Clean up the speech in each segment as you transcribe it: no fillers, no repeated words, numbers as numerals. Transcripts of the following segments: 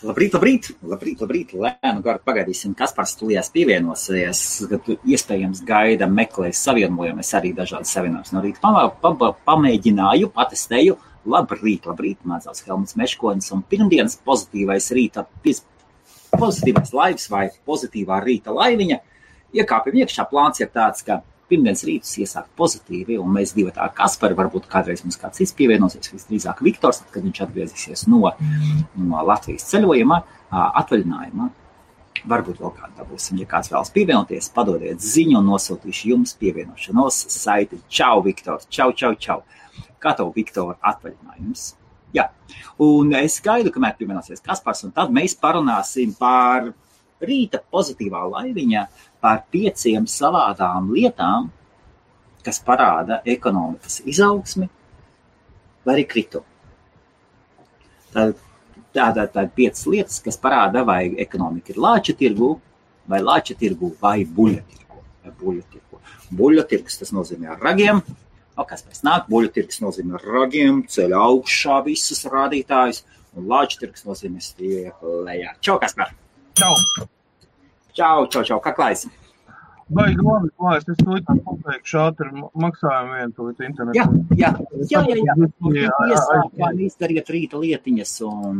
Labrīt. Lēnu garu pagaidīsim, Kaspars studijās pievienosies, kad iespējams gaida meklēs savienojumu. Es arī dažādas savienojumus no rīta pamēģināju, patestēju. Labrīt, mans sauc Helmuts Meškonis, un pirmdienas pozitīvais laivs vai pozitīvā rīta laiviņa. Iekāpjam iekšā, plāns ir tāds, ka pirmdienas rītus iesākt pozitīvi, un mēs divi tā Kaspari, varbūt kādreiz mums kāds cits pievienosies, visdrīzāk Viktors, kad viņš atgriezīsies no Latvijas ceļojuma, atvaļinājuma. Varbūt vēl kādu dabūsim, ja kāds vēlas pievienoties, padodiet ziņu un nosūtīšu jums pievienošanos saiti. Čau, Viktor, čau. Kā tev, Viktor, atvaļinājums? Jā, un es gaidu, kamēr pievienosies Kaspars, un tad mēs parunāsim par rīta pozitīvā laiviņa, par 5 savādām lietām, kas parāda ekonomikas izaugsmi vai arī kritumu. Tātad 5 lietas, kas parāda, vai ekonomika ir lāča tirgu vai buļļa tirgu. Buļļa tirgus, tas nozīmē ar ragiem. Kas pēc nāk, buļļa tirgus nozīmē ar ragiem, ceļ augšā visus rādītājus, un lāča tirgus nozīmē stiep lejā. Čau, Kaspar! Čau, kā klājas? Baigi labi klājas, es to likām pateikšu ātri maksājumu vienu to internetu. Jā. Iesākām izdariet rīta lietiņas un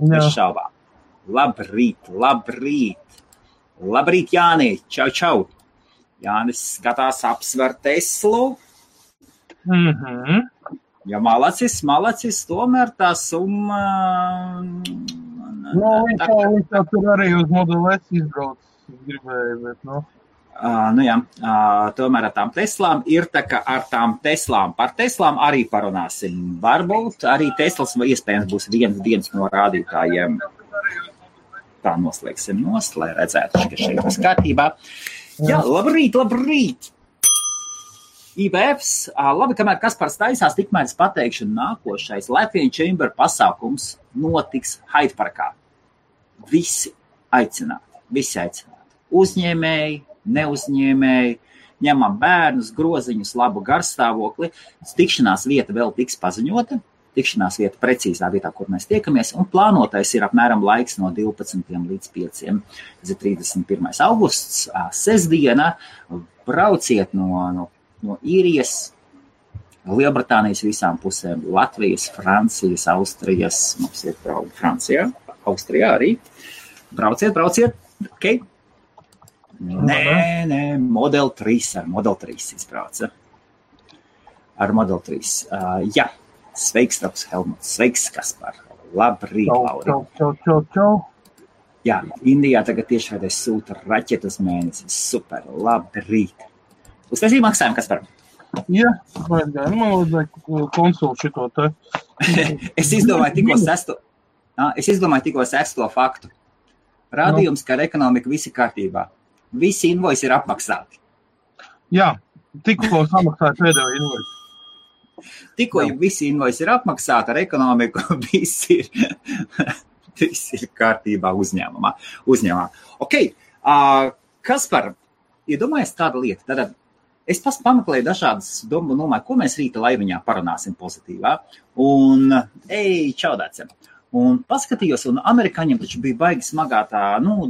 bez šaubām. Labrīt, Jāni, čau. Jānis skatās apsver Teslu. Ja malacis, tomēr tā summa... Viņš tur arī uz Model S izbrauc, gribēju, bet, tomēr ar tām Teslām ir tā, ka ar tām Teslām, par Teslām arī parunāsim. Varbūt arī Teslas iespējams būs viens no rādītājiem. Tā noslēgsim lai redzētu, ka šeit būs kārtībā. Jā, labrīt! IBFs, labi, kamēr Kaspars taisās, tikmēr es pateikšu, nākošais Latvian Chamber pasākums notiks Hyde Parkā. Visi aicināti. Uzņēmēji, neuzņēmēji, ņemam bērnus, groziņus, labu garstāvokli. Tikšanās vieta vēl tiks paziņota. Tikšanās vieta precīzā vietā, kur mēs tiekamies, un plānotais ir apmēram laiks no 12 līdz 5. Tas ir 31. augusts, sestdiena. Brauciet no Īrijas, Lielbritānijas visām pusēm, Latvijas, Francijas, Austrijas, mums ir Francijā, Austrijā arī. Brauciet, ok? Nē, Model 3 izbrauca. Ar Model 3. Jā, sveiks, Taps Helmuts, sveiks, Kaspar. Labrīt, Lauri. Čau. Jā, Indijā tagad tiešraidē sūta raķetas mēnesis. Super, labrīt. Uztaisīja maksājumu, Kaspar? Jā, man vajadzēja konsultu šito te. Es izdomāju tikko sesto faktu. Rādījums, ka ar ekonomiku visi kārtībā. Visi invoisi ir apmaksāti. Jā, tikko samaksāja pēdējo invoisi. Tikko visi invoisi ir apmaksāti, ar ekonomiku visi ir kārtībā uzņēmumā. Ok, Kaspar, iedomājies tāda lieta. Tātad es pameklēju dažādas domāju, ko mēs rīta laiviņā parunāsim pozitīvā. Un, čaudāciem. Un paskatījos, un amerikāņiem taču bija baigi smagā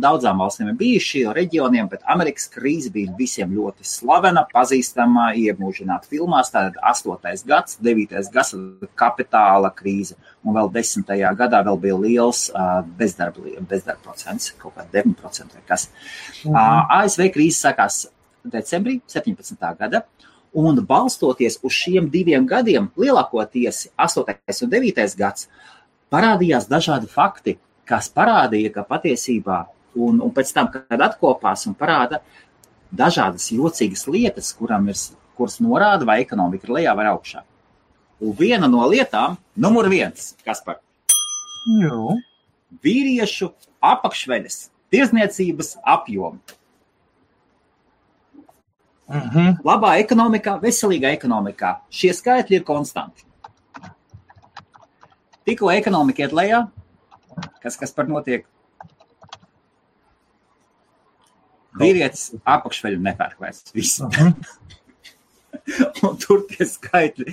daudzām valstīm ir bijuši reģioniem, bet Amerikas krīze bija visiem ļoti slavena, pazīstama, iemūžināta filmās. Tātad 8. gads, 9. gads kapitāla krīze, un vēl 10. gadā vēl bija liels bezdarba procents, kaut kā 9% vai kas. ASV krīze sākās decembrī 17. gada, un balstoties uz šiem 2 gadiem, lielākoties 8. un 9. gads, parādījās dažādi fakti, kas parādīja, ka patiesībā, un pēc tam, kad atkopās un parāda dažādas jocīgas lietas, kuras norāda, vai ekonomika ir lejā vai augšā. Un viena no lietām, numur 1, Kaspar. Jā. Vīriešu apakšveļas tirdzniecības apjomi. Labā ekonomikā, veselīgā ekonomikā. Šie skaitļi ir konstanti. Tikko ekonomika iet lejā, kas par notiek? Vīrietis apakšveļu nepērk vairs. Un tur tie skaitļi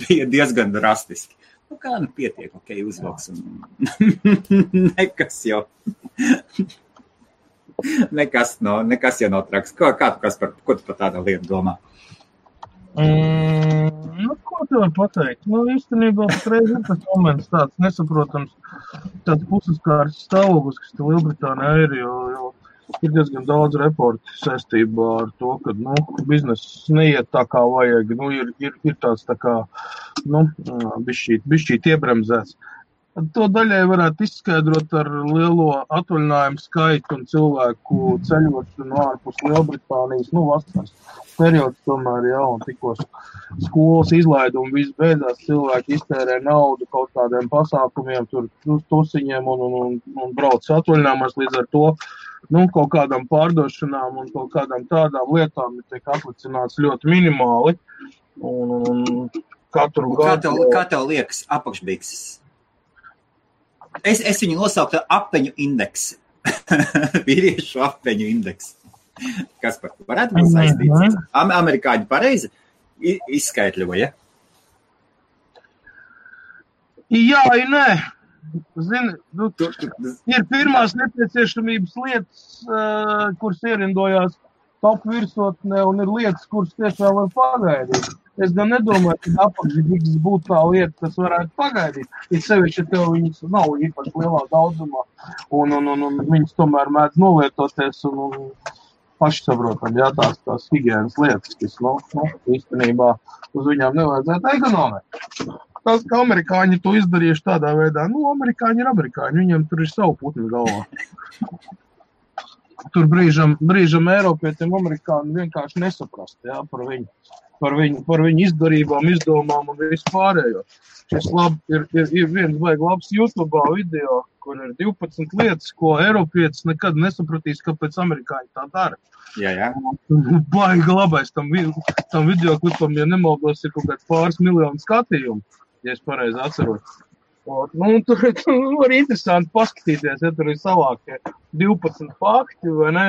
bija diezgan drastiski. Nu kā, nu pietiek, ok, uzvilks un nekas jau. Nekas jau nav traks. Kā tu, ko tu par tādu lietu domā? Ko tu var pateikt? Īstenībā patreiz ir tas moments tāds nesaprotams, tāds pusaskārs stāvoklis, kas te Lielbritānijā ir, jo ir diezgan daudz reporti saistībā ar to, ka, bizness neiet tā kā vajag, ir tāds tā kā, bišķīt iebremzēts. To daļai varētu izskaidrot ar lielo atvaļinājumu skaitu un cilvēku ceļošanu ārpus Lielbritānijas, vasaras periods tomēr, un tikko skolas izlaidumi viss beidzās, cilvēki iztērē naudu kaut kādiem pasākumiem, tur tusiņiem un brauc atvaļinājumos, līdz ar to, kaut kādām pārdošanām un kaut kādām tādām lietām tiek atlicināts ļoti minimāli. Un katru gadu... Kā tev liekas apakšbikses? Es viņu nosauktu apeņu indeksu. Vīriešu apeņu indeksu. Kas par to varētu būt saistīts? Amerikāņi pareizi izskaitļoja? Jā, nē. Zini, ir pirmās nepieciešamības lietas, kuras ierindojās top virsotnē, un ir lietas, kuras tiešām var pagaidīt. Es gan nedomāju, ka apakšbikses būtu tā lieta, kas varētu pagaidīt. Ir sevišķi, ja tev viņas nav īpaši lielā daudzumā, un viņas tomēr mēdz nolietoties un pašsaprotam, tās higienas lietas, kas, īstenībā uz viņām nevajadzētu ekonomēt. Tas, ka amerikāņi to izdarījuši tādā veidā, amerikāņi ir amerikāņi, viņiem tur ir savu putnu galvā. Tur brīžam Eiropietiem amerikāņi vienkārši nesaprast, par viņu izdarībām, izdomām un visu pārējo. Šis ir viens labs YouTube video, kur ir 12 lietas, ko Eiropietis nekad nesapratīs, kāpēc amerikāņi tā dara. Jā. Baigi labais tam videoklipam, ja nemaldos, ir kaut kāds pāris miljonu skatījumu, ja es pareizi atceros. Tur var interesanti paskatīties, ja tur ir savākie 12 fakti, vai ne?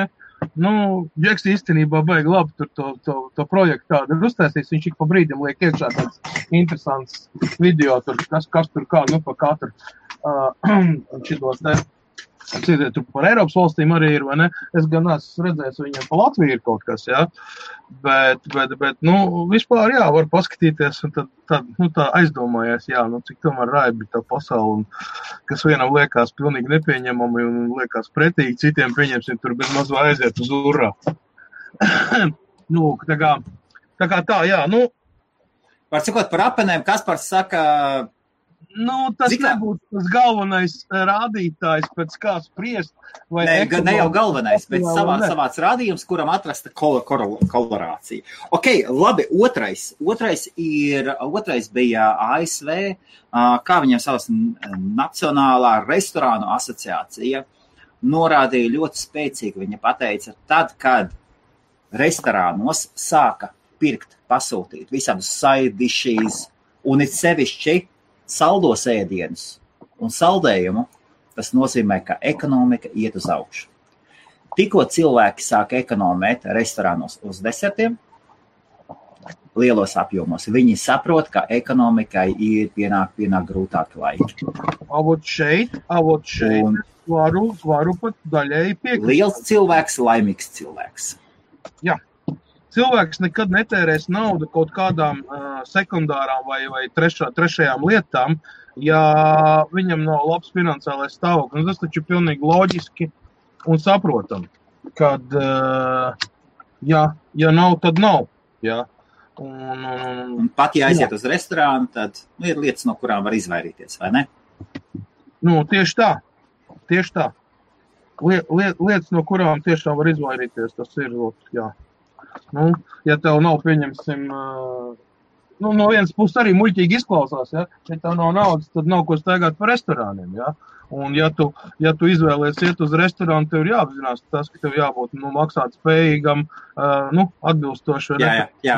Džeks īstenībā baigi labi tur to projektu tādu ir uztaisījis, viņš ik pa brīdim liek iekšā tāds interesants video, tur, kas tur kā, pa katru šitos te. Tur par Eiropas valstīm arī ir, vai ne? Es gan esmu redzējis, viņam pa Latviju ir kaut kas, bet, vispār, var paskatīties, un tad tā aizdomājies, cik tomēr raibi tā pasauli, kas vienam liekas pilnīgi nepieņemami un liekas pretīgi, citiem pieņemsim, tur bez mazu aiziet uz urā. Tā kā tā, Var sakot par apenēm, Kaspars saka... Tas nebūtu tas galvenais rādītājs, pēc kā spriest. Ne jau galvenais, bet savāds rādījums, kuram atrasta korelācija. Ok, labi, otrais bija ASV, kā viņam savas Nacionālā restorānu asociācija, norādīja ļoti spēcīgi. Viņa pateica, tad, kad restorānos sāka pirkt, pasūtīt visādus side dishes un it sevišķi saldos ēdienus un saldējumu, tas nozīmē, ka ekonomika iet uz augšu. Tikko cilvēki sāk ekonomēt restorānos uz desertiem, lielos apjomos, viņi saprot, ka ekonomikai ir pienāk grūtāki laiki. Avot šeit varu pat daļēji piekrist. Liels cilvēks, laimīgs cilvēks. Jā. Cilvēks nekad netērēs naudu kaut kādām sekundārām vai trešajām lietām, ja viņam nav labs finansiālais stāvoklis. Tas taču ir pilnīgi loģiski un saprotam, kad, ja nav, tad nav. Ja. Un pat, ja aiziet uz restorānu, tad ir lietas, no kurām var izvairīties, vai ne? Tieši tā. Lietas, no kurām tiešām var izvairīties, tas ir, jā. Ja tev nav, pieņemsim, no vienas puses arī muļķīgi izklausās, ja tev nav naudas, tad nav ko staigāt par restorāniem, Un ja tu izvēlies iet uz restorānu, tev ir jāapzinās tas, ka tev jābūt, maksāt spējīgam, atbilstoši,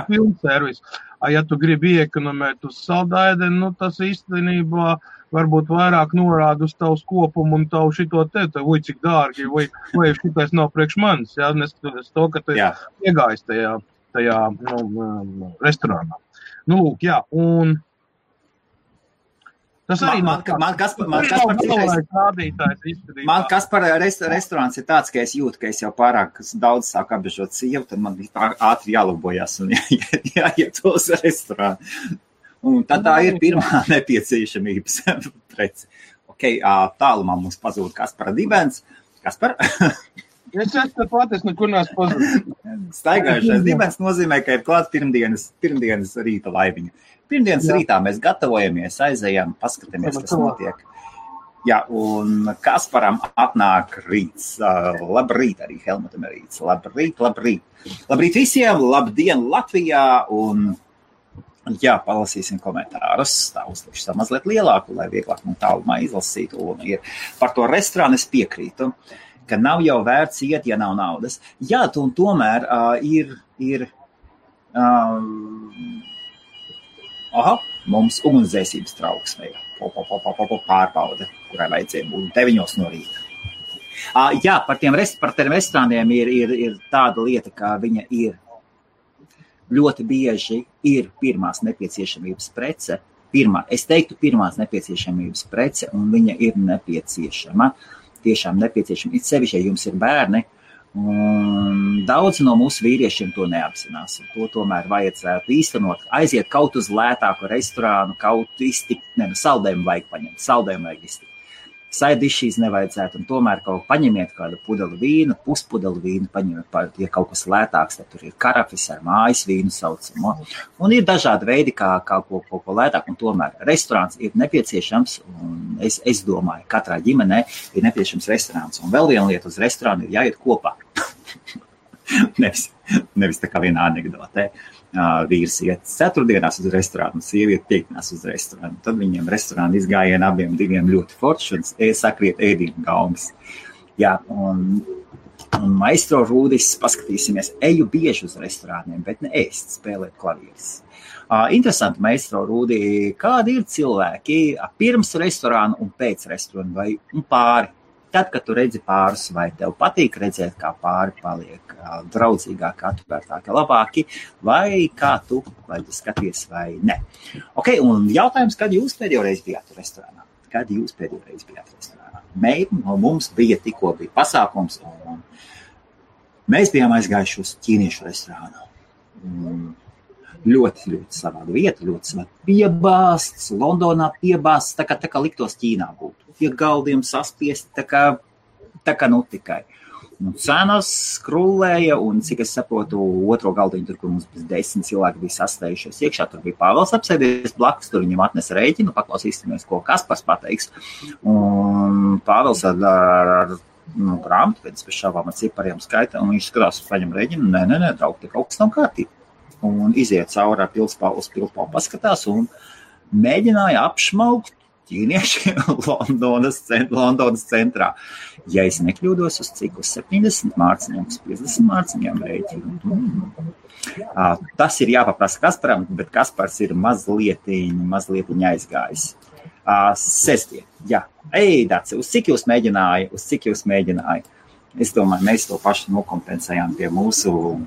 pilnu servisu. Ja tu gribi iekonomēt uz saldēdeni, tas īstenībā varbūt vairāk norāda uz tavu kopumu un tavu šito vai cik dārgi, vai šitais nav priekš manis, neskatoties to, ka tu iegājis tajā restorānā. Un Tas arī Man Kaspar restorāns ir tāds, ka es jūtu, ka es jau pārāk daudz sāku apbežot sievu, tad man ātri jālabojās un jāiet uz restorānu. Un tad tā ir pirmā nepieciešamības prece. Tālumā mums pazūd Kaspara dibens. Kaspar? Es pat, es nekur neesmu pazudis. Staigājušais dibens nozīmē, ka ir klāt pirmdienas rīta laiviņa. Pirmdienas rītā mēs gatavojamies, aizējām, paskatāmies, kas notiek. Jā, un Kasparam atnāk rīts. Labrīt arī Helmutam ir rīts. Labrīt. Labrīt visiem, labdien Latvijā. Un, jā, palasīsim komentārus. Tā uzlikšu mazliet lielāku, lai vieglāk man tālumā izlasītu. Un par to restorānu es piekrītu, ka nav jau vērts iet, ja nav naudas. Jā, un tomēr ir mums ugunsdzēsības trauksme pārbaude, kurai vajadzēja būt 9 no rīta. Jā, par tiem restorāniem ir tāda lieta, ka viņa ir ļoti bieži ir pirmās nepieciešamības prece. Es teiktu pirmās nepieciešamības prece, un viņa ir nepieciešama. Tiešām nepieciešama. It sevišķi, ja jums ir bērni, un daudz no mūsu vīriešiem to neapzinās. To tomēr vajadzētu īstenot. Aiziet kaut uz lētāku restorānu, kaut iztikt, saldējumu vajag paņemt, saldējumu vajag iztikt. Saidišīs nevajadzētu, un tomēr kaut paņemiet kādu pudeli vīnu, puspudeli vīnu, paņemiet, ja kaut kas lētāks, tad tur ir karafis ar mājas vīnu saucamo. Un ir dažādi veidi, kā kaut ko lētāk, un tomēr restorāns ir nepieciešams, un es domāju, katrā ģimenē ir nepieciešams restorāns. Un vēl viena lieta, uz restorānu ir jāiet kopā. nevis tā kā vienā anekdotē. Vīrs iet ceturtdienās uz restorānu, sieviete piekdienās uz restorānu. Tad viņiem restorāna izgājiena abiem diviem ļoti forši un sakriet ēdību gaumas. Jā, un maestro Rūdis, paskatīsimies, eju bieži uz restorāniem, bet ne ēst, spēlēt klavieres. Interesanti, maestro Rūdi, kādi ir cilvēki pirms restorāna un pēc restorāna vai pāri? Tad, kad tu redzi pārus, vai tev patīk redzēt, kā pāri paliek draudzīgāk, atvērtāki, labāki, vai kā tu skaties vai ne. Un jautājums, kad jūs pēdējo reizi bijāt restorānā? Mums bija pasākums, un mēs bijām aizgājuši uz ķīniešu restorānu. Ļoti, ļoti savāda vieta, ļoti savāda piebāsts, Londonā piebāsts, tā kā liktos Ķīnā būtu. Pie galdiem saspiesti, tā kā nu tikai. Un cenas skrūlēja, un cik es saprotu, otro galdiņu, tur, kur mums 10 cilvēki bija sastējušies iekšā, tur bija Pāvels apsēdies blakus, tur viņam atnesa rēķinu, paklausīsimies, ko Kaspars pateiks. Un Pāvels ar grāmatu, pēc šāvām ar cipariem skaita, un viņš skatās, paņem rēķinu, nē, draug, te kaut kas nav kārtībā. Un iziet cauri ar pilspālu paskatās un mēģināja apšmaukt ķīnieši Londonas centrā. Ja es nekļūdos, uz cik uz 70 mārciņām, uz 50 mārciņām rēķinu. Tas ir jāpaprasa Kasparam, bet Kaspars ir mazliet aizgājis. Sestdien, jā. Daci, uz cik jūs mēģināja? Es domāju, mēs to pašu nokompensējām pie mūsu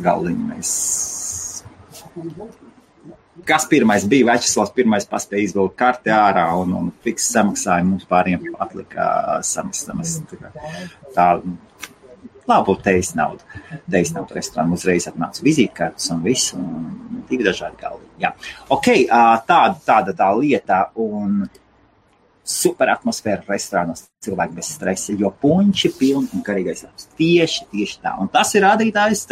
galdiņa. Kas pirmais bija? Večeslavs pirmais paspēja izvilkt karti ārā un fiks samaksāja. Mums pāriem atlika samaksāt. Tā labu teis naudu. Teis naudu restorānu uzreiz atnāca vizītkartes un viss. Un 2 dažādi galdiņi. Jā. Tāda tā lieta un super atmosfēra restorānos, cilvēki bez stresa, jo puņši pilni un garīgais labs. Tieši tā. Un tas ir rādītājs,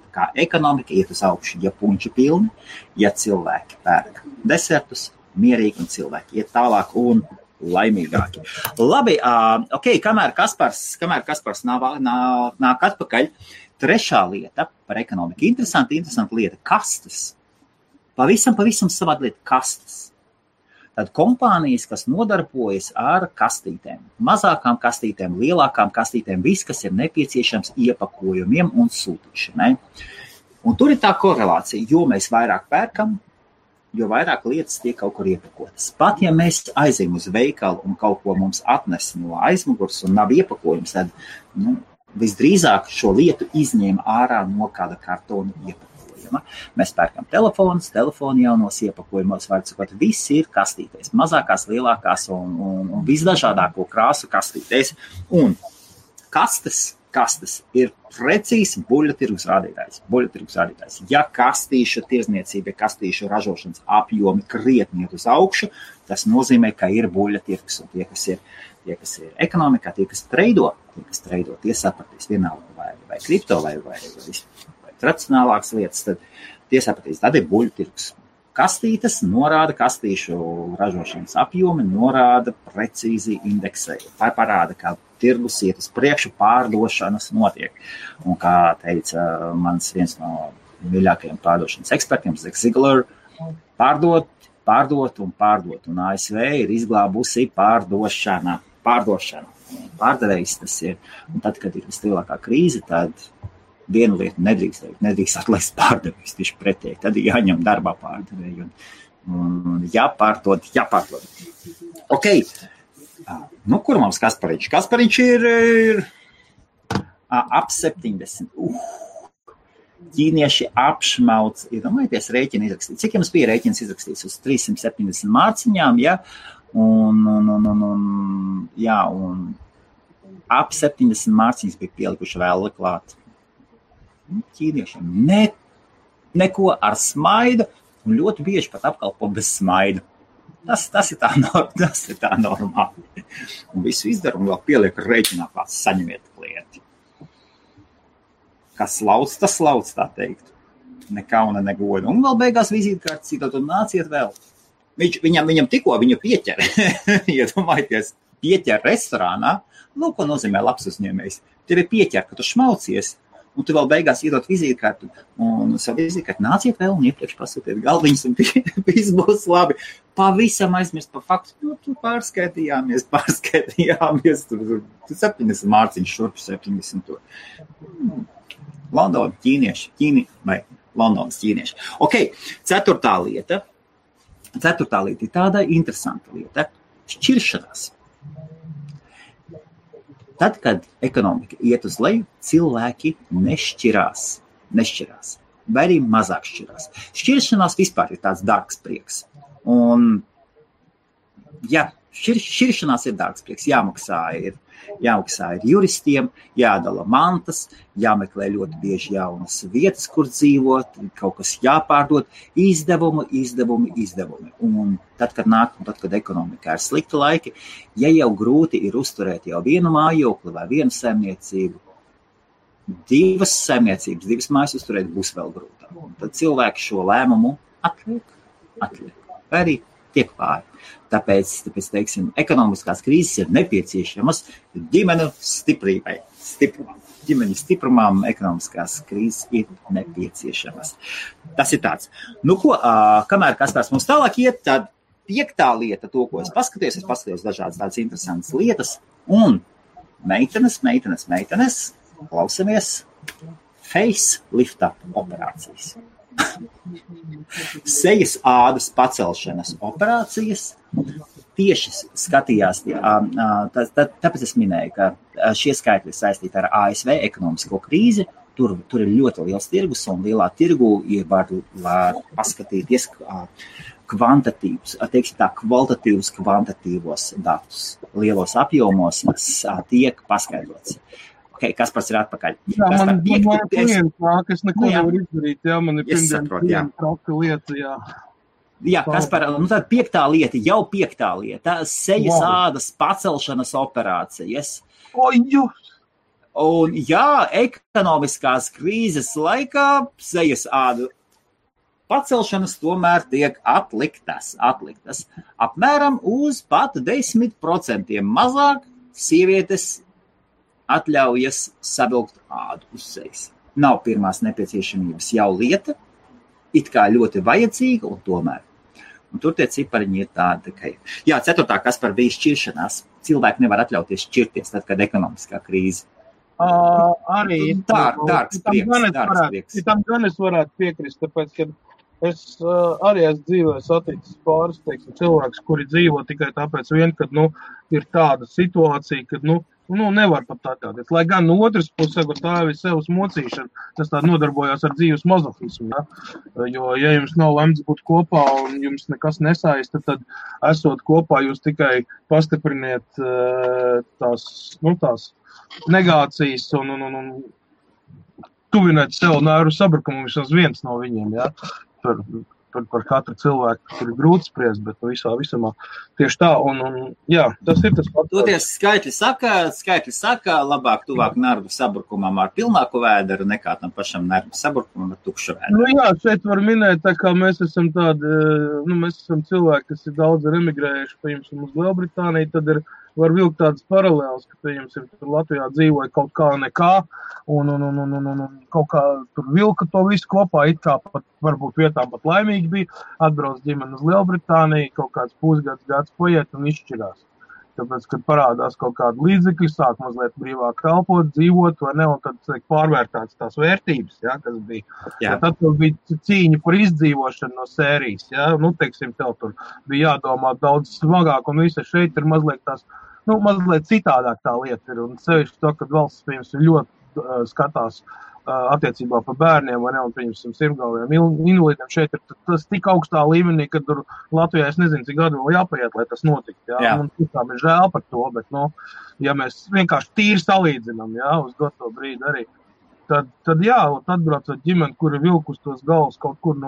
kā ekonomika iet uz augšu, ja puņši pilni, ja cilvēki pērk desertus, mierīgi un cilvēki iet tālāk un laimīgāki. Labi, kamēr Kaspars nāk atpakaļ, trešā lieta par ekonomiku. Interesanta lieta, kastes. Pavisam savāda lieta, kastes. Tad kompānijas, kas nodarbojas ar kastītēm, mazākām kastītēm, lielākām kastītēm, viss, kas ir nepieciešams iepakojumiem un sūtīšanai. Un tur ir tā korelācija, jo mēs vairāk pērkam, jo vairāk lietas tiek kaut kur iepakotas. Pat ja mēs aizējam uz veikalu un kaut ko mums atnes no aizmugurs un nav iepakojums, tad visdrīzāk šo lietu izņēma ārā no kāda kartona iepakojuma. kastītēm. Mēs pērkam telefoni jaunos iepakojumos, var sakot, viss ir kastītēs, mazākās, lielākās un visdažādāko krāsu kastītēs. Un kastes ir precīzi buļļatirgus rādītājs. Ja kastīšu tirzniecība, kastīšu ražošanas apjomi krietni iet uz augšu, tas nozīmē, ka ir buļļatirgus. Un tie, kas ir ekonomikā, tie, kas treido, tie sapratīs vienalga vai kripto vai tradicionālākas lietas, tad tie sapratīs, tad ir buļļatirgus. Kastītes norāda kastīšu ražošanas apjomi, norāda precīzi indeksēju. Tā parāda, kā tirgus iet uz priekšu, pārdošanas notiek. Un kā teica mans viens no mīļākajiem pārdošanas ekspertiem, Zig Ziglar, pārdot. Un ASV ir izglābusi pārdošana. Pārdevējs tas ir. Un tad, kad ir vislielākā krīze, tad vienu lietu nedrīkst atlaist pārdevējs, tieši pretēji. Tad ir jāņem darbā pārdevēji un jāpārdod. Ok. Kur mums Kaspariņš? Kaspariņš ir ap 70. Ķīnieši apšmauc, iedomājieties, rēķinu izrakstīt. Cik jums bija rēķins izrakstīts? Uz 370 mārciņām, ja? Un ap 70 mārciņas bija pielikuši vēl klāt. Ķīniešiem neko ar smaidu un ļoti bieži pat apkalpo bez smaidu. Tas ir tā normāli. Un visu izdara un vēl pieliek rēķinā kāds saņemiet klienti. Kas lauc, tas lauc, tā teikt. Ne kauna, ne goda. Un vēl beigās vizītkārtas citot un nāciet vēl. Viņam tikko viņu pieķer. Iedomājieties, pieķer restorānā. Ko nozīmē labs uzņēmējs? Tevi pieķer, ka tu šmaucies. Un tu vēl beigās iedot vizītkārtu. Un savu vizītkārtu nāciet vēl un iepriekš pasūtiet galdiņus un viss būs labi. Pavisam aizmirst par faktu. Tu pārskaitījāmies. Tur 70 mārciņš, šurp 70 tur. Londona ķīnieši. Londonas ķīnieši. Ok, ceturtā lieta ir tāda interesanta lieta. Šķiršanās. Tad, kad ekonomika iet uz leju, cilvēki nešķirās. Vai arī mazāk šķirās. Šķiršanās vispār ir tāds dārgs prieks. Un, šķiršanās ir dārgs prieks. Jāmaksā ir juristiem, jādala mantas, jāmeklē ļoti bieži jaunas vietas, kur dzīvot, kaut kas jāpārdod, izdevumi. Un tad, kad ekonomikā ir slikti laiki, ja jau grūti ir uzturēt jau vienu mājokli vai vienu saimniecību, divas saimniecības, divas mājas uzturēt būs vēl grūtāk. Un tad cilvēki šo lēmumu atliek. Vai arī tiek pāri. Tāpēc, teiksim, ekonomiskās krīzes ir nepieciešamas ģimeņu stiprībai. Ģimeņu stiprumam ekonomiskās krīzes ir nepieciešamas. Tas ir tāds. Kamēr Kaspars mums tālāk iet, tad piektā lieta, to, ko es paskatījos dažādas tādas interesantas lietas, un meitenes, klausamies, facelifta operācijas. Sejas ādas pacelšanas operācijas tieši skatījās, tāpēc es minēju, ka šie skaitļi ir saistīti ar ASV ekonomisko krīzi, tur ir ļoti liels tirgus un lielā tirgu var paskatīties kvalitatīvos kvantitīvos datus. Lielos apjomos tiek paskaidrots. Ok, Kaspars ir atpakaļ. Jā, man klients nāk, es neko nevaru izdarīt, man ir pirmdien traka lieta, jā. Jā, Kaspar, tad piektā lieta, sejas ādas pacelšanas operācijas. Un ekonomiskās krīzes laikā sejas ādu pacelšanas tomēr tiek atliktas. Apmēram uz pat 10% mazāk sievietes atļaujas savilkt ādu uz sejas. Nav pirmās nepieciešamības jau lieta, it kā ļoti vajadzīga un tomēr. Un tur tie cipariņi ir tādi, ka... Jā, ceturtā, kas par bija šķiršanās. Cilvēki nevar atļauties šķirties tad, kad ekonomiskā krīze. Arī dārgs prieks. Tam gan es varētu piekrist, tāpēc, ka es arī esmu dzīvē saticis pāris, cilvēks, kuri dzīvo tikai tāpēc vien, kad, ir tāda situācija, kad, nevar pat atļauties. Lai gan no otras puses, tā ir sevas mocīšana, tas tā nodarbojās ar dzīves mazofismu, ja? Jo, ja jums nav lemts būt kopā un jums nekas nesaista, tad esot kopā jūs tikai pastipriniet tās negācijas un tuvināt sev nervu sabrukumu vismaz viens no viņiem, ja? Par katru cilvēku tur ir grūti spriest, bet visumā tieši tā, jā, tas ir tas pats. Toties skaitļi saka, labāk tuvāk nervu sabrukumam ar pilnāku vēderu nekā tam pašam nervu sabrukumam ar tukšu vēderu. Jā, šeit var minēt, tā kā mēs esam mēs esam cilvēki, kas ir daudz emigrējuši, piemēram, uz Lielbritāniju, tad var vilkt tādas paralēlas, ka, piemēram, tur Latvijā dzīvoja kaut kā nekā, un kaut kā tur vilka to visu kopā, it kā pat varbūt vietām pat laimīgi bija, atbrauc ģimeni uz Lielbritāniju, kaut kāds gads paiet un izšķirās. Tāpēc, kad parādās kaut kāda līdzekļi, sāk mazliet brīvāk kalpot, dzīvot, vai ne, un tad pārvērtāts tās vērtības, ja, kas bija. Ja, tad bija cīņa par izdzīvošanu no sērijas, ja, teiksim, tev tur bija jādomā daudz smagāk, un visa šeit ir mazliet tās, mazliet citādāk tā lieta ir, un sevišķi to, kad valsts, piemēram, ļoti skatās attiecībā par bērniem, vai ne, un piemēram, sirmgalviem invalīdiem šeit ir tas tik augstā līmenī, ka tur Latvijā es nezinu, cik gadu vēl jāpaiet, lai tas notikt, jā. Un tiešām ir žēl par to, bet, ja mēs vienkārši tīri salīdzinām, jā, uz doto brīdi arī, tad jā, atbraucot ģimeni, kur ir vilkus tos galvas kaut kur,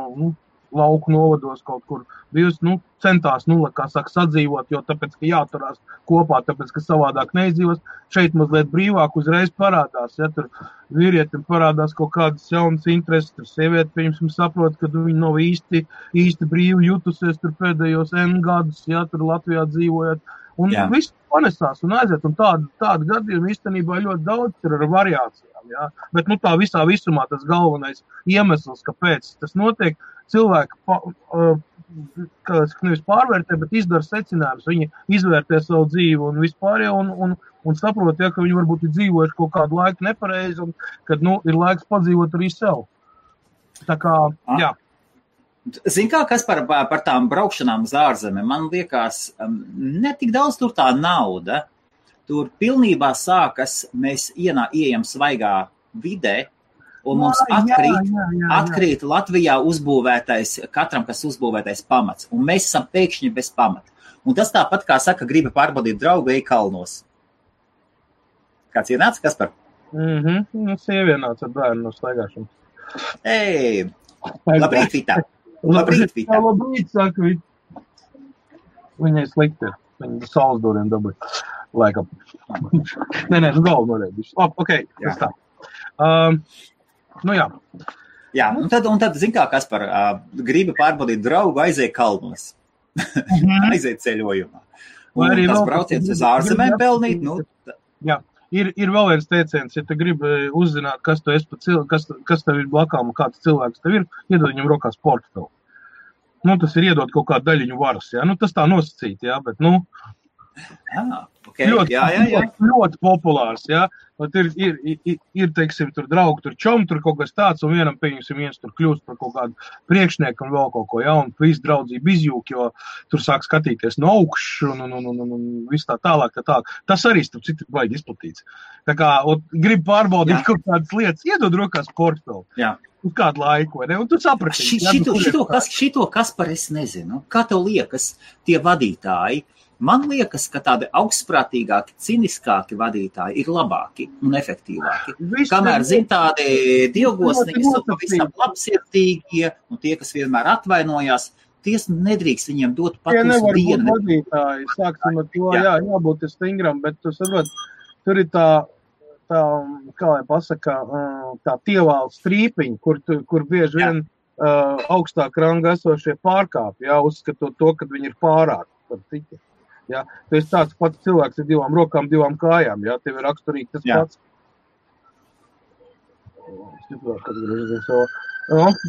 lauku novados kaut kur bijusi, centās, kā saka, sadzīvot, jo tāpēc, ka jāturās kopā, tāpēc, ka savādāk neizdzīvos, šeit mazliet brīvāk uzreiz parādās, ja tur vīrietim parādās kaut kādas jaunas intereses, tur sieviete, piemēram, saprot, ka viņi nav īsti brīvi jutusies tur pēdējos N gadus, ja tur Latvijā dzīvojot, un viss panesās un aiziet, un tādu gadījumu īstenībā ļoti daudz ir ar variācijām, ja, bet, tā visā visumā tas galvenais iemesls, kāpēc tas notiek, cilvēki nevis pārvērtē, bet izdara secinājumus. Viņi izvērtē savu dzīvi un vispārējo un saprot, ja, ka viņi varbūt ir dzīvojuši kaut kādu laiku nepareizi un kad, ir laiks padzīvot arī sev. Tā kā, jā. Zin kā, kas par tām braukšanām uz ārzemēm, man liekas, netik daudz tur tā nauda. Tur pilnībā sākas, mēs ieejam svaigā vidē, un mums atkrīt Latvijā uzbūvētais, katram, kas uzbūvētais pamats, un mēs esam pēkšņi bez pamata. Un tas tāpat, kā saka, gribi pārbaudīt draugu, ej kalnos. Kāds ienāca, kas par? Sievienāca ar bērnu no staigāšanas. Ej, labrīt, Vita. Labrīt, Vita. Labrīt, saka Vita. Viņai slikti ir. Viņa saules doriem dabūja. Laikam. Nē, galvu norēdīšu. Ok, tas tā. Jā. Jā, un tad zin kā, kas par gribi pārbaudīt draugu, aiziet kalnos. Aiziet ceļojumā. Un tas brauciens uz ārzemēm pelnīt, Jā, ir vēl viens teiciens, ja tu gribi uzzināt, kas tu esi kas tev ir blakām un kāds cilvēks tev ir, iedod viņam rokās portfeli. Tas ir iedot kaut kādu daļiņu varas, jā. Tas tā nosacīt, jā, bet, okay. Ļoti populārs, jā. Ir, teiksim, tur draugi, tur čom, tur kaut kas tāds, un vienam, pieņemsim, viens tur kļūst par kaut kādu priekšnieku un vēl kaut ko, jā, un visu draudzību izjūk, jo tur sāk skatīties no augšu, un viss tā tālāk. Tas arī, starp citu, baigi izplatīts. Tā kā, grib pārbaudīt kaut kādas lietas, iedod rokās portfeli. Jā. Uz kādu laiku, vai ne? Un tu saprati. Šito kas par es nezinu. Kā tev liekas, tie vadītāji? Man liekas, ka tādi augstprātīgāki, ciniskāki vadītāji ir labāki un efektīvāki. Kamēr, tādi dievgosnīgi, pavisam labsirdīgie, un tie, kas vienmēr atvainojās, ties nedrīkst viņiem dot pat uz dienu. Tie nevar būt vadītāji, sāksim ar to, jābūt stingram, bet tu saprot, tur ir tā, kā lai pasaka, tā tievāla strīpiņa, kur bieži vien augstāk ranga esošie pārkāpji, uzskatot to, ka viņi ir pārāk par citu. Jā, tu esi tāds pats cilvēks ar 2 rokām, 2 kājām, jā, tev ir raksturīgi tas pats.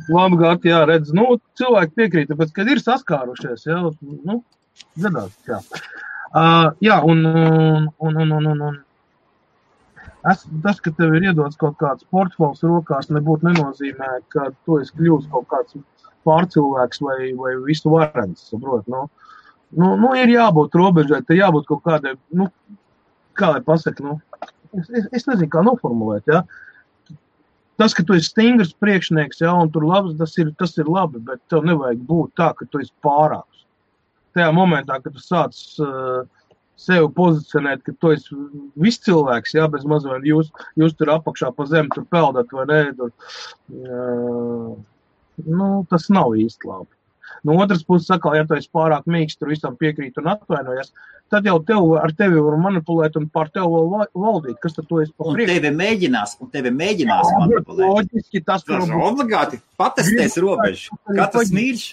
Labgāt, jā, redz, cilvēki piekrīt, tāpēc, kad ir saskārušies, jā, gadās, jā. Jā, un tas, ka tev ir iedots kaut kāds portfels rokās, nebūtu nenozīmē, ka tu esi kļūst kaut kāds pārcilvēks vai visu varens, saprot, ir jābūt robežai, te jābūt kaut kādai, kā lai pasaka, nu, es nezinu, kā noformulēt, ja. Tas, ka tu esi stingrs priekšnieks, ja, un tur labs, tas ir labi, bet tev nevajag būt tā, ka tu esi pārāks. Tajā momentā, kad tu sāc sevi pozicionēt, ka tu esi viss cilvēks, ja, bez mazliet jūs tur apakšā pa zemi tur peldat vai ne, tur, tas nav īsti labi. No otras puses, sakal, ja tu esi pārāk mīksts, tur visam piekrīt un atvainojas, tad jau ar tevi var manipulēt un pār tevi vēl valdīt. Kas tad tu esi pa priekšu? Un tevi mēģinās manipulēt. Loģiski tas, obligāti patestēs robežu. Katrs mīļš.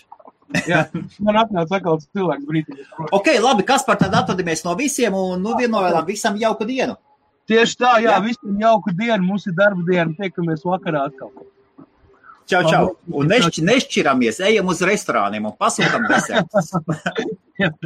Jā, man atnāca sakal cilvēks brītīgi. Ok, labi, Kaspar, tad atvadamies no visiem un vienojām visam jauku dienu. Tieši tā, jā, visam jauku dienu, mums ir darba diena, tiekamies vakarā atkal. Čau. Un nešķiramies, ejam uz restorāniem un pasūtam desertus.